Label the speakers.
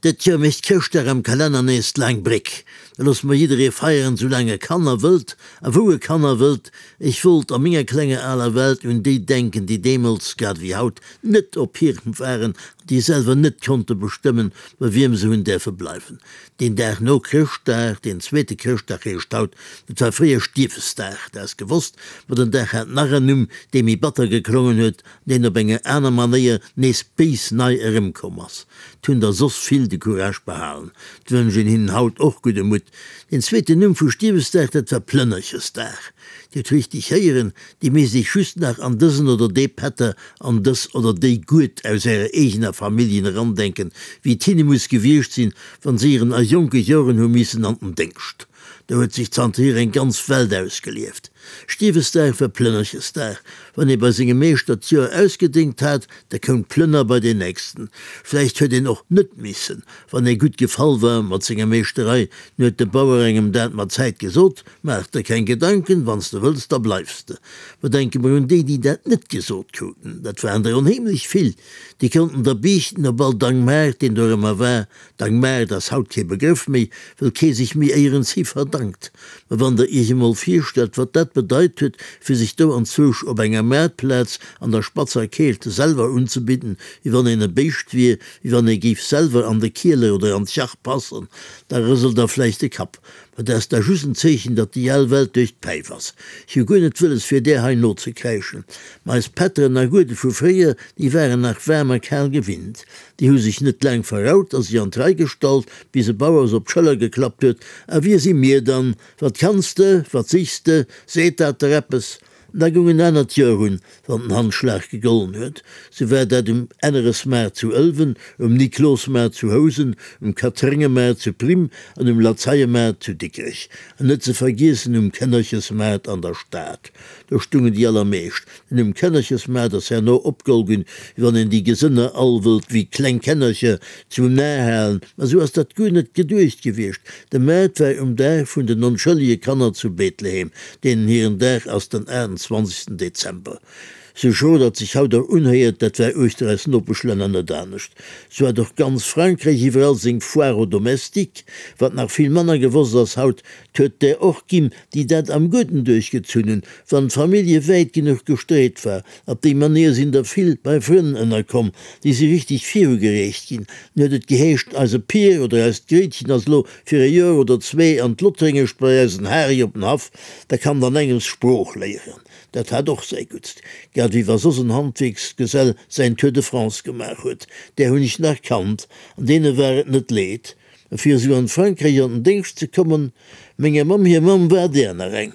Speaker 1: Dat Joer mécht Chrëschtdag am Kalenner nees d'laang Bréck. Da loosse mer jidderee feieren, sou laang e kann a wëllt, a wou e kann a wëllt. Ech wollt a menger klenger aler Welt un déi denken, déi deemools, grad ewéi haut, net op hirem waren an déi selwer net konnte bestëmmen, bei wiem se hunn däerfe bleiwen. Deen Dag no Chrëschtdag, deen zweete Chrëschtdag heescht haut, dat war fréier Stiefesdag, dat ass gewosst, ma den Dag hat nach en Numm, dee méi batter geklongen huet, deen op enger aner Manéier nees béis nei erëmkomm ass. 't hunn der soss vill de Courage behalen, 't wënsch een hinnen haut och gudde Mutt. Deen zweeten Numm vu Stiewesdag, dat war Plënnerchesdag. Dir hutt richteg héieren, Dir misst iech just nach an dësen oder dee Pätter, an dës oder déi Gued aus ärer eegener Familljen erandenken, wéi 't hinne muss gewiescht sinn, wann se ieren a jonke Joren hu missen an den Déngscht. Do huet sech zanterhier eng ganz Welt ausgelieft. Stiewesdag war Plënnerchesdag. Wann ee bei sengem Meeschter d'Joer ausgedéngt hat, da koum d'Plënner bei deen nächsten. Vläicht huet een och net missen, wann ee gutt gefall war mat senger Meeschterei, dann huet de Bauer engem dat mat Zäit gesot, Maach der keng Gedanken, wann s de wëlls, da bleifs de. Mä denke mer un déi, déi dat net gesot kruten, dat waren der onheemlech vill, déi konnten der biichten op all Dangmaart, deen dorëmmer war, Dangmaart ass haut kee Begrëff méi, wëll kee sech méi éierens hi verdankt. Mä wann der iech emol virstellt, wat dat bedeit huet, fir sech do anzwousch op enger Maartplaz an der spatzer Keelt selwer unzebidden, wéi wann een e Béischt wier, wéi wann ee géif selwer an de Kieler oder an d'Jach passen, da rëselt der vläicht de Kapp. Mä dat ass da just en Zeechen, datt déi al Welt duerch d'Päif ass. Ech hu guer net wëlles, fir där hei nozekräischen. Mä eis Pätteren a Guede vu fréier, déi waren nach waarm a kal gewinnt. Déi hu sech net laang verraut a sech an d'Rei gestallt, bis e Bauer se op d'Schëller geklappt huet, A wie si mir dann? Wat kanns de? Wat sichs de? Seet dat der eppes? An da goung en anert Joer un, wann den Handschlag gegollen huet. Sou war dat um Enneresmaart zu Ëlwen, um Niklosmaart zu Housen, um Katréngemaart zu Prim an um Lazeiemaart zu Dikrech. An net ze vergiessen um Kënnerchesmaart an der Stad. Do stungen déi allermeescht. Den Numm Kännerchesmaart ass herno opgeholl ginn, wéi wann een déi Gesënner all wëllt wéi kleng Kännercher zum Nar halen. Ma sou ass dat guer net geduecht gewiescht. De Maart war um Dag vun den onschëllege Kanner zu Bethlehem, deenen hiren Dag ass den 28. Dezember. Sou schro dat sech haut och unhéiert, dat war uechter eis Nopeschlänner net anescht. Sou hat och ganz Frankräich iwwerall seng Foire aux domestiques. Wat nach vill manner gewosst ass haut, 't huet där och ginn, déi dat am Gudden duerchgezunn hunn, wann d'Famillje wäit genuch gestreet war. Op déi Manéier sinn der vill bei Frënn ënnerkomm, déi si richteg virugereecht ginn. Dann huet et geheescht, eise Pier oder eist Gréitchen ass elo fir e Joer oder zwee an d'Lottréngescht bei eisen Hari op den Haff, da kann dann engems Sprooch léieren. Dat hat och säi Guttst, grad wéi wa soss en Handwierksgesell säin Tour de France gemaach huet. Där hunn ech nach kannt, an deene war et net leed. Fir esou an Frankräich an den Déngscht ze kommen, menger Mamm hir Mamm war där nach eng.